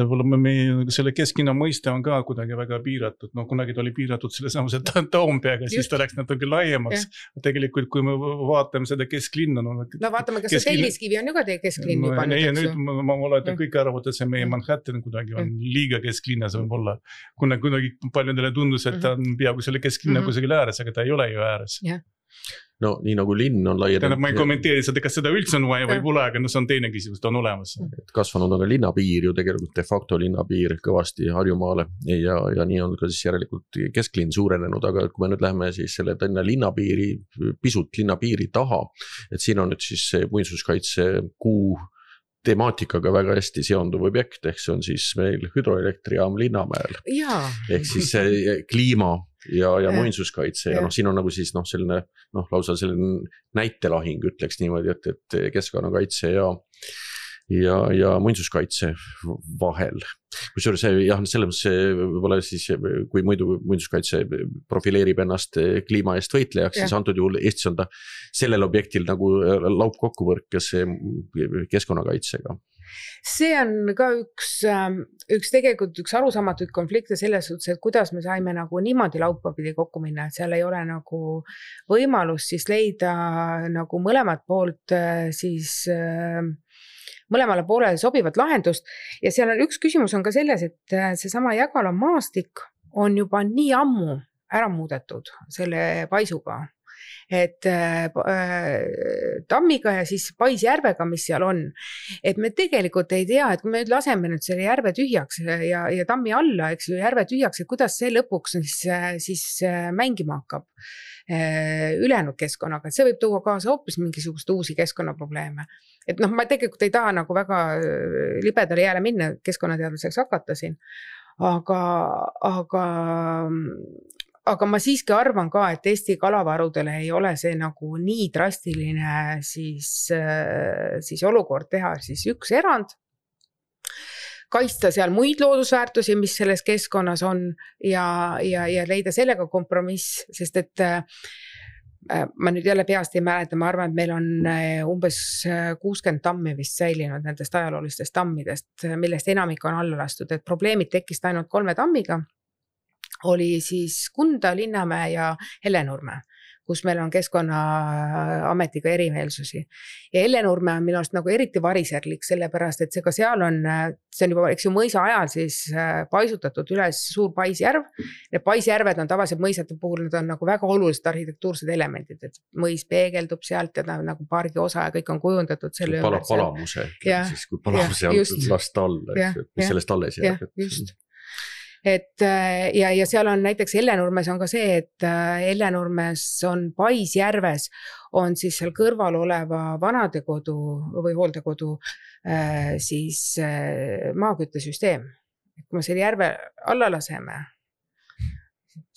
selle kesklinna mõiste on ka kuidagi väga piiratud, no kunagi ta oli piiratud selle samuse Toompeaga, siis ta läks natuke laiemaks. Tegelikult, kui me vaatame seda kesklinna... No vaatame, kas see Telliskivi on ju ka teie kesklinn juba nüüd, eks ju? Nüüd ma olen kõik arvad, et see meie Manhattan kuidagi on liiga kesklinnas võib-olla. Kunagi paljudele tundus, et ta on peaaegu selle kesklinna kusagil ääres, aga ta ei ole ju ääres. No nii nagu linn on laienenud. Ma ei kommenteeri seda, kas seda üldse on vaja või pole, aga see on teine küsimus, ta on olemas. Kasvanud on ka linnapiir ju tegelikult de facto linnapiir kõvasti Harjumaale ja nii on ka siis järelikult kesklinn suurenenud, aga kui me nüüd läheme siis selle Tallinna linnapiiri, pisut linnapiiri taha, et siin on nüüd siis muinsuskaitse kuu temaatikaga väga hästi seonduv objekt, ehk see on siis meil hüdroelektrijaam Linnamäel. Ehk siis kliima ja muinsuskaitse ja siin on nagu siis selline lausa selline näitelahing ütleks niimoodi, et keskkonnakaitse ja muinsuskaitse vahel. Kusjuures selles võib-olla siis, kui muidu muinsuskaitse profileerib ennast kliima eest võitlejaks, siis antud juhul Eestis on ta sellel objektil nagu laupkokkuvõrkes keskkonnakaitsega. See on ka tegelikult üks arusaamatuid konflikte selles suhtes, et kuidas me saime nagu niimoodi laupapidi kokku minna, et seal ei ole nagu võimalus siis leida nagu mõlemat poolt siis mõlemale poolele sobivat lahendust ja seal on üks küsimus on ka selles, et seesama Jägala maastik on juba nii ammu ära muudetud selle paisuga, et tammiga ja siis Paisjärvega, mis seal on, et me tegelikult ei tea, et kui me nüüd laseme nüüd selle järve tühjaks ja tammi alla, eks ju, järve tühjaks, et kuidas see lõpuks siis mängima hakkab ülejäänud keskkonnaga, et see võib tuua kaasa hoopis mingisugust uusi keskkonnaprobleeme. Et ma tegelikult ei taha nagu väga libedale jääle minna, keskkonnateadlaseks hakata siin, aga ma siiski arvan ka, et Eesti kalavarudele ei ole see nagu nii drastiline siis olukord teha siis üks erand, kaitsta seal muid loodusväärtusi, mis selles keskkonnas on ja leida sellega kompromiss, sest et ma nüüd jälle peast ei mäleta, ma arvan, et meil on umbes 60 tammi vist säilinud nendest ajaloolistest tammidest, millest enamik on alla lastud, et probleemid tekkist ainult 3 tammiga, oli siis Kunda, Linnamäe ja Hellenurme, kus meil on Keskkonnaametiga erimeelsusi. Ja Hellenurme on minu arust nagu eriti variserlik, sellepärast, et see seal on, see on juba, eks ju, mõisa ajal siis paisutatud üles suur Paisjärv. Need Paisjärved on tavaliselt mõisate puhul, need on nagu väga olulised arhitektuursed elemendid, et mõis peegeldub sealt ja ta nagu pargi osa ja kõik on kujundatud selle ümber. Palamuse, siis kui palamuse on last alla, mis sellest alles jääb. Just. Et ja seal on näiteks Hellenurmes on ka see, et Hellenurmes on Paisjärves on siis seal kõrval oleva vanadekodu või hooldekodu siis maaküttesüsteem. Kui me selle järve alla laseme,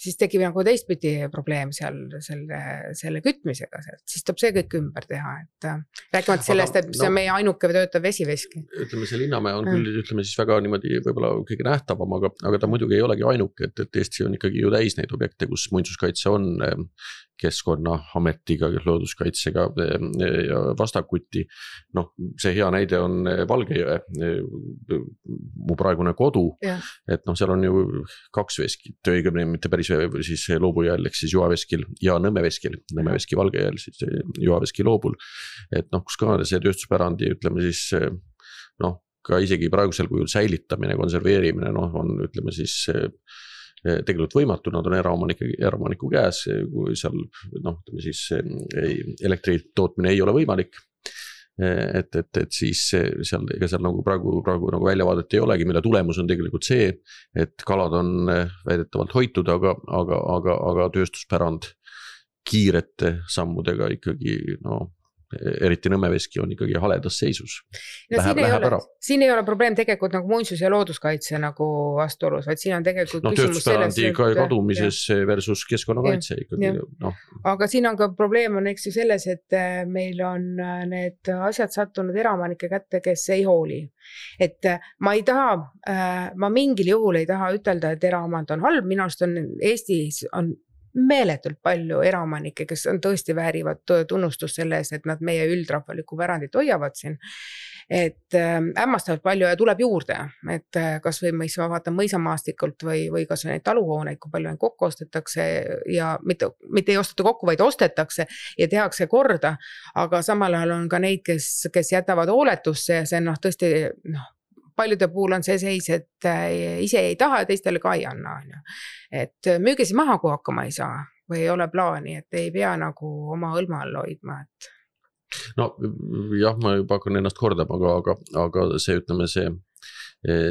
siis tekib nagu teistpidi probleem seal selle kütmisega, siis tuleb see kõik ümber teha, et rääkimata sellest, et see on meie ainuke töötav vesiveski. Ütleme, see Linnamäe on küll, ütleme siis väga niimoodi võib-olla kõige nähtavam, aga ta muidugi ei olegi ainuke, et Eesti on ikkagi ju täis neid objekte, kus muinsuskaitse on Keskkonnaametiga, looduskaitsega ja vastakuti. See hea näide on Valgejõe, mu praegune kodu, et seal on ju 2 veskit, õigemini mitte päris siis Loobujääl, ehk siis Juhaveskil ja Nõmmeveskil, Nõmmeveski Valgejääl, siis Juhaveski Loobul, et kus ka see tööstuspärandi, ütleme siis, ka isegi praegusel kujul säilitamine, konserveerimine, on, ütleme siis, tegelikult võimatu, nad on eraomaniku käes, kui seal, ütleme siis, elektri tootmine ei ole võimalik, et siis seal nagu praegu nagu väljavaadet ei olegi, mille tulemus on tegelikult see, et kalad on väidetavalt hoitud, aga tööstuspärand kiirete sammudega ikkagi eriti Nõmmeveski on ikkagi haledas seisus. No, siin ei ole probleem tegelikult nagu muinsus- ja looduskaitse nagu vastuolus, vaid siin on tegelikult küsimus selles. Kadumises versus keskkonnakaitse ikkagi. Aga siin on ka probleem on eks ju selles, et meil on need asjad sattunud eraomanike kätte, kes ei hooli. Et ma mingil juhul ei taha ütelda, et eraomand on halb, minu arust on Eestis on meeletult palju eraomanikke, kes on tõesti väärivad tunnustust selle eest, et nad meie üldrahvalikku pärandit hoiavad siin. Et hämmastavalt palju ja tuleb juurde, et kas või ma vaatan mõisamaastikult või kas või neid taluhooneid, kui palju neid kokku ostetakse ja mitte ei osteta kokku, vaid ostetakse ja tehakse korda, aga samal ajal on ka neid, kes jätavad hooletusse ja see on tõesti paljude puhul on see seis, et ise ei taha ja teistele ka ei anna. Et müüge siis maha, kui hakkama ei saa või ei ole plaani, et ei pea nagu oma õlma all hoidma. No jah, ma juba hakkan ennast kordama, aga see ütleme see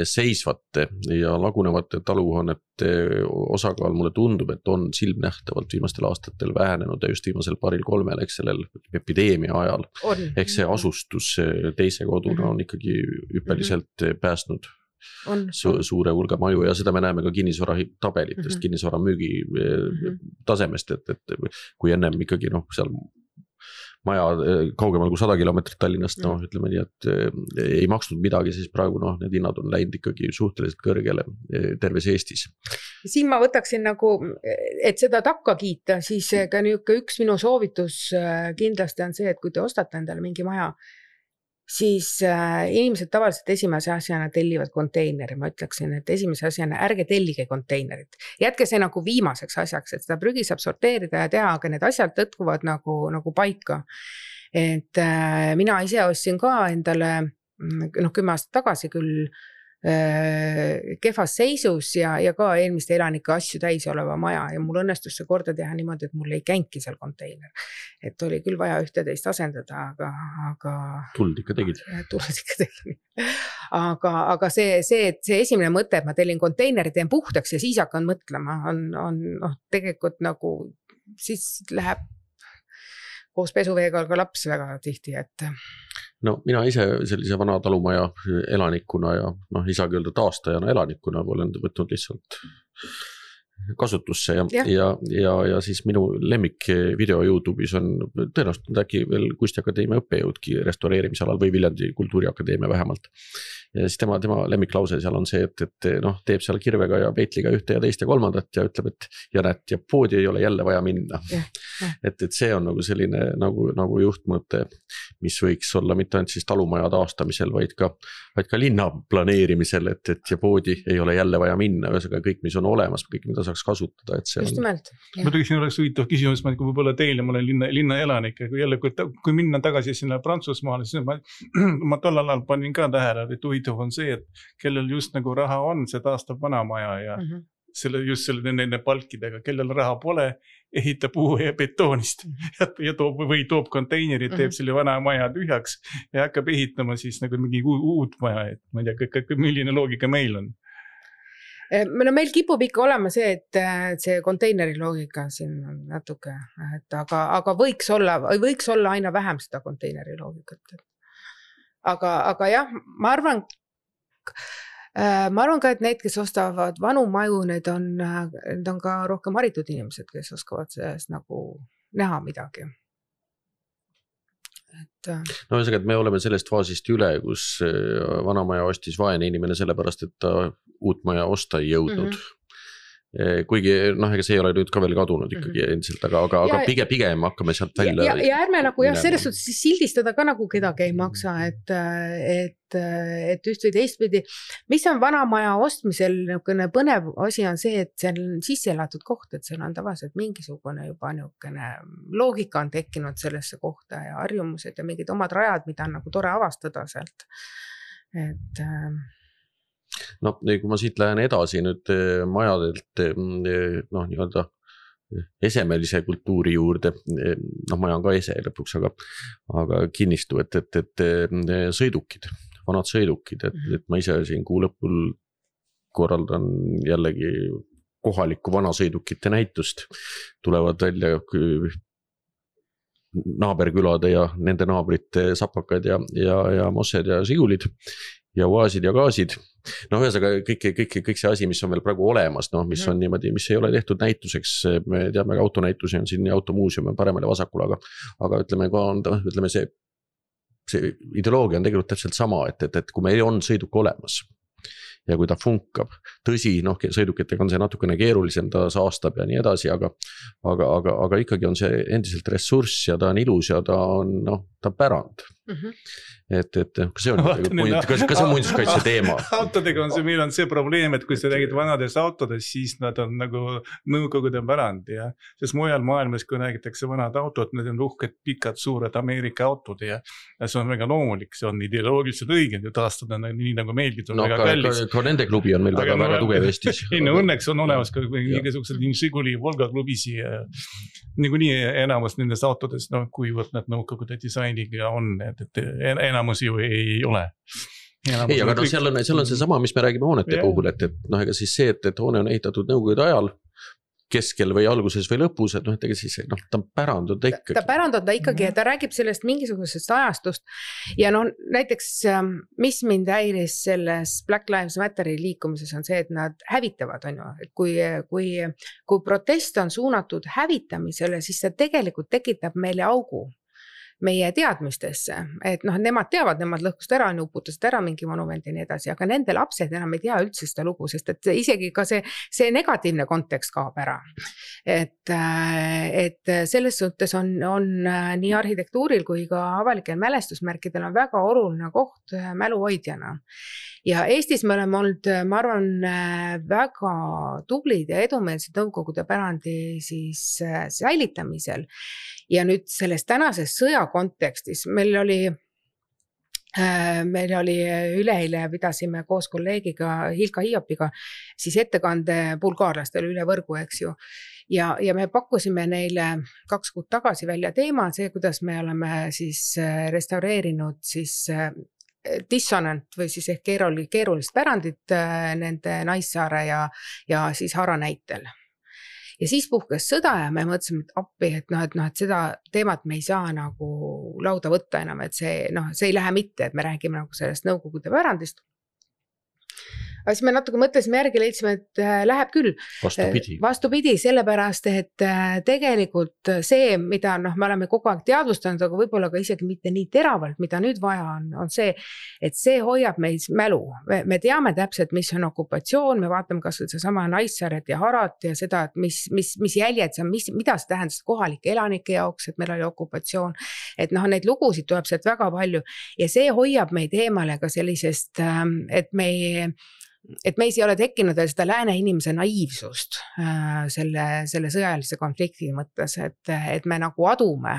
seisvate ja lagunevate taluhoonete osakaal mulle tundub, et on silmnähtavalt viimastel aastatel vähenenud ja just viimasel 2-3, eks sellel epideemia ajal. Ehk see asustus teise koduna on ikkagi hüppeliselt päästnud suure hulga maju ja seda me näeme ka kinnisvara tabelitest, kinnisvara müügi tasemest, et kui ennem ikkagi seal maja kaugemal kui 100 kilomeetrit Tallinnast, ütleme nii, et ei maksnud midagi, siis praegu need hinnad on läinud ikkagi suhteliselt kõrgele terves Eestis. Siin ma võtaksin nagu, et seda takka kiita, siis ka üks minu soovitus kindlasti on see, et kui te ostate endale mingi maja, siis inimesed tavaliselt esimese asjana tellivad konteineri, ma ütleksin, et esimese asjana ärge tellige konteinerit. Jätke see nagu viimaseks asjaks, et seda prügi saab sorteerida ja teha, aga need asjad tõtkuvad nagu paika. Et mina ise ostsin ka endale 10 aastat tagasi küll kehvas seisus ja ka eelmiste elanike asju täis oleva maja ja mul õnnestus see korda teha niimoodi, et mul ei känki seal konteiner. Et oli küll vaja ühteteist asendada, aga tuld ikka tegid. Aga see esimene mõte, et ma tellin konteineri, teen puhtaks ja siis hakkan mõtlema, on tegelikult nagu siis läheb koos pesuveega ka laps väga tihti, et no mina ise sellise vana talumaja elanikuna ja isagi öelda taastajana elanikuna olen võtnud lihtsalt kasutusse ja siis minu lemmik video YouTube'is on tõenäoliselt äkki veel Kunstiakadeemia õppejõudki restaureerimisalal või Viljandi Kultuuriakadeemia vähemalt. Ja siis tema lemmiklause seal on see, et teeb seal kirvega ja peitliga ühte ja teist ja kolmandat ja ütleb, et ja poodi ei ole jälle vaja minna. Et see on nagu selline nagu juhtmõte, mis võiks olla mitte ainult siis talumaja taastamisel, vaid ka linna planeerimisel, et ja poodi ei ole jälle vaja minna, ühesõnaga kõik, mis on olemas, kõik, mida saaks kasutada, et see on. Just nimelt. Ma siin oleks huvitav küsimus, kui võib-olla teile, ma olen linna elanik, kui minna tagasi sinna Prantsusmaale, siis ma tollal ajal panin ka tähele, et huvitav on see, et kellel just nagu raha on, see taastab vanamaja ja just nende palkidega, kellel raha pole, ehitab uue ja betoonist ja toob konteinerid, teeb selle vana maja tühjaks ja hakkab ehitama siis nagu mingi uut maja, et ma ei tea, milline loogika meil on. No meil kipub ikka olema see, et see konteineri loogika siin on natuke, aga võiks olla aina vähem seda konteineri loogikat. Aga jah, ma arvan ka, et need, kes ostavad vanu maju, need on ka rohkem haritud inimesed, kes oskavad sellest nagu näha midagi. No ühesõnaga, et me oleme sellest faasist üle, kus vanamaja ostis vaene inimene sellepärast, et ta uut maja osta ei jõudnud. Kuigi ega see ei ole nüüd ka veel kadunud ikkagi endiselt, aga pigem hakkame sealt välja. Ja ärme nagu selles suhtes sildistada ka nagu kedagi ei maksa, et üht või teistpidi. Mis on vanamaja ostmisel põnev asi on see, et see on sisse elatud koht, et seal on tavaliselt mingisugune juba loogika on tekkinud sellesse kohta ja harjumused ja mingid omad rajad, mida on nagu tore avastada sealt. Et no kui ma siit lähen edasi nüüd majadelt nii-öelda esemelise kultuuri juurde, maja on ka ese lõpuks, aga kinnistu, et sõidukid, vanad sõidukid, et ma ise siin kuu lõpul korraldan jällegi kohalikku vanasõidukite näitust, tulevad välja naaberkülade ja nende naabrite sapakad ja mossed ja sigulid ja uaasid ja gaasid. No ühesõnaga kõik see asi, mis on veel praegu olemas, no mis on niimoodi, mis ei ole tehtud näituseks, me teame, autonäitusi on siin ja automuuseum on paremale vasakul, aga ütleme see ideoloogia on tegelikult täpselt sama, et kui meil on sõiduk olemas ja kui ta funkab, tõsi, sõidukitega on see natukene keerulisem, ta saastab ja nii edasi, aga ikkagi on see endiselt ressurss ja ta on ilus ja ta on pärand. Et kas see on muinsuskaitse teema? Autodega on meil on see probleem, et kui sa räägid vanadest autodest, siis nad on nagu nõukogude pärand ja sest mujal maailmas, kui räägitakse vanad autod, need on uhked, pikad, suured Ameerika autod ja see on väga loomulik, see on ideoloogiliselt õige taastada nii nagu meilgi, on väga kallis. Ka nende klubi on meil väga tugev Eestis. Õnneks on olemas ka mingisugused Žiguli Volga klubisi ja niikuinii enamus nendest autodest, kuivõrd nad nõukogude disainiga on, et enamus ju ei ole. Ei, aga seal on see sama, mis me räägime hoonete puhul, et ega siis see, et hoone on ehitatud nõukogude ajal, keskel või alguses või lõpus, et ega siis ta pärand on ta ikkagi. Ta pärand on ta ikkagi, ta räägib sellest mingisugusest ajastust ja näiteks mis mind häiris selles Black Lives Matteri liikumises on see, et nad hävitavad, on ju, et kui protest on suunatud hävitamisele, siis see tegelikult tekitab meile augu meie teadmistesse, et nemad teavad, nemad lõhkust ära, uputasid ära mingi monument ja nii edasi, aga nende lapsed enam ei tea üldse seda lugu, sest et isegi ka see negatiivne kontekst kaob ära. Et selles suhtes on nii arhitektuuril kui ka avalikel mälestusmärkidel on väga oluline koht mäluhoidjana. Ja Eestis me oleme olnud, ma arvan, väga tublid ja edumeelsed nõukogude pärandi siis säilitamisel. Ja nüüd selles tänases sõja kontekstis meil oli üleeile, pidasime koos kolleegiga Hilka Hiopiga siis ettekande bulgaarlastele üle võrgu, eks ju. Ja me pakkusime neile 2 kuud tagasi välja teema, see, kuidas me oleme siis restaureerinud siis dissonant või siis ehk keerulist pärandit nende Naissaare ja siis Hara näitel. Ja siis puhkes sõda ja me mõtlesime, et appi, et seda teemat me ei saa nagu lauda võtta enam, et see ei lähe mitte, et me räägime nagu sellest nõukogude pärandist. Aga siis me natuke mõtlesime järgi, leidsime, et läheb küll. Vastupidi, sellepärast, et tegelikult see, mida me oleme kogu aeg teadvustanud, aga võib-olla ka isegi mitte nii teravalt, mida nüüd vaja on see, et see hoiab meid mälu. Me teame täpselt, mis on okupatsioon, me vaatame kas see sama Naissaaret ja Harat ja seda, et mis jäljed see on, mida see tähendas kohalike elanike jaoks, et meil oli okupatsioon. Et neid lugusid tuleb sealt väga palju ja see hoiab meid eemale ka sellisest, et meis ei ole tekkinud seda lääne inimese naiivsust selle sõjalise konflikti mõttes, et me nagu adume,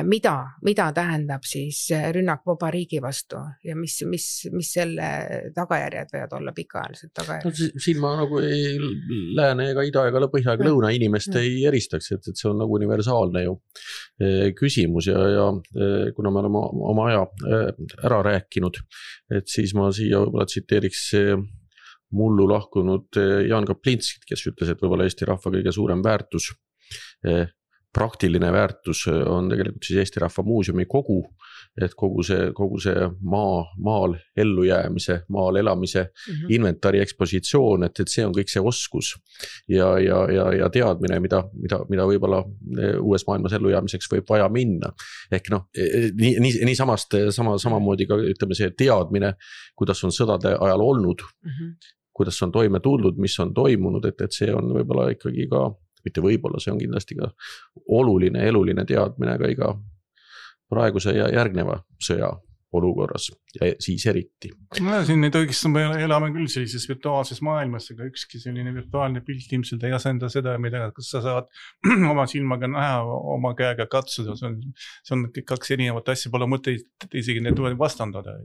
mida tähendab siis rünnak vaba riigi vastu ja mis selle tagajärjed võivad olla pikaajalised tagajärjed. Siin ma nagu lääne ega ida ega põhja ega lõuna inimest ei eristaks, et see on nagu universaalne ju küsimus ja kuna me oleme oma aja ära rääkinud, et siis ma siia võib-olla tsiteeriks mullu lahkunud Jaan Kaplinskit, kes ütles, et võib-olla Eesti rahva kõige suurem väärtus praktiline väärtus on tegelikult siis Eesti Rahva Muuseumi kogu, et kogu see maal ellujäämise, maal elamise inventari ekspositsioon, et see on kõik see oskus ja teadmine, mida võib-olla uues maailmas ellujäämiseks võib vaja minna. Ehk nii samamoodi ka ütleme see teadmine, kuidas on sõdade ajal olnud, kuidas on toime tulnud, mis on toimunud, et see on võib-olla ikkagi ka mitte võib-olla, see on kindlasti ka oluline, eluline teadmine ka iga praeguse ja järgneva sõja olukorras ja siis eriti. Siin neid õigesti me elame küll sellises virtuaalses maailmas, aga ükski selline virtuaalne pilt ilmselt ei asenda seda, mida sa saad oma silmaga näha, oma käega katsuda. See on 2 erinevat asja, pole mõtet isegi need vastandada.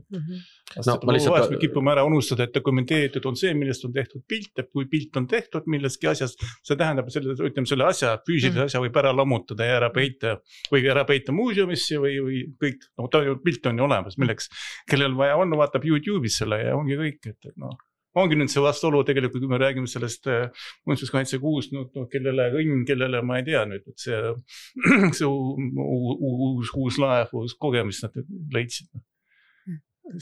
Me kipume ära unustada, et dokumenteeritud on see, millest on tehtud pilt, et kui pilt on tehtud millestki asjast, see tähendab, selle asja, füüsilise asja võib ära lammutada ja ära peita muuseumisse või kõik, pilt on ju olemas, milleks kellel vaja on, vaatab YouTube'is selle ja ongi kõik, et ongi nüüd see vastuolu tegelikult, kui me räägime sellest muinsuskaitsekuust, kellele õnn, kellele ma ei tea nüüd, et see uus laev, uus kogemus nad leidsid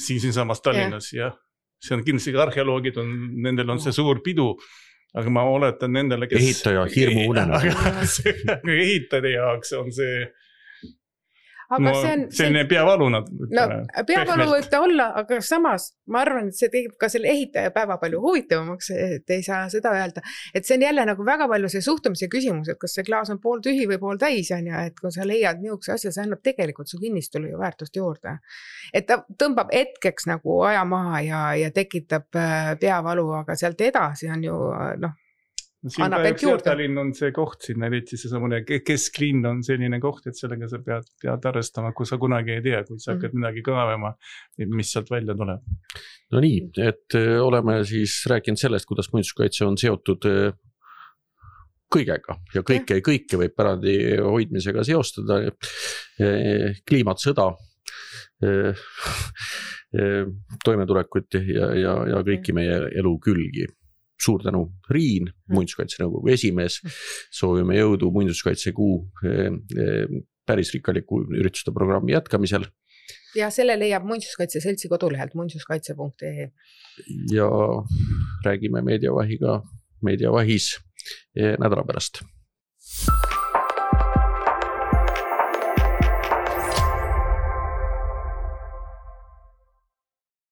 siin samas Tallinnas ja see on kindlasti arheoloogid, nendel on see suur pidu, aga ma oletan nendele, kes ehitaja hirmu unena. Ehitajate jaoks on see aga selline peavalu nad. No, peavalu võib ta olla, aga samas ma arvan, et see teeb ka selle ehitaja päeva palju huvitavamaks, et ei saa seda öelda. Et see on jälle nagu väga palju see suhtumise küsimus, et kas see klaas on pool tühi või pool täis, et kui sa leiad niisuguse asja, see annab tegelikult su kinnistule ju väärtust juurde. Et ta tõmbab hetkeks nagu aja maha ja tekitab peavalu, aga sealt edasi on ju siin kahjuks Tallinn on see koht siin, eriti see samune kesklinn on selline koht, et sellega sa pead arvestama, kui sa kunagi ei tea, kui sa hakkad midagi kaevama, mis sealt välja tuleb. No nii, et oleme siis rääkinud sellest, kuidas muinsuskaitse on seotud kõigega ja kõike võib pärandi hoidmisega seostada, kliimat, sõda, toimetulekut ja kõiki meie elu külgi. Suur tänu, Riin, muinsuskaitsenõukogu esimees, soovime jõudu muinsuskaitsekuu päris rikkaliku ürituste programmi jätkamisel. Ja selle leiab Muinsuskaitse Seltsi kodulehelt muinsuskaitse.ee. Ja räägime Meediavahiga Meediavahis nädala pärast.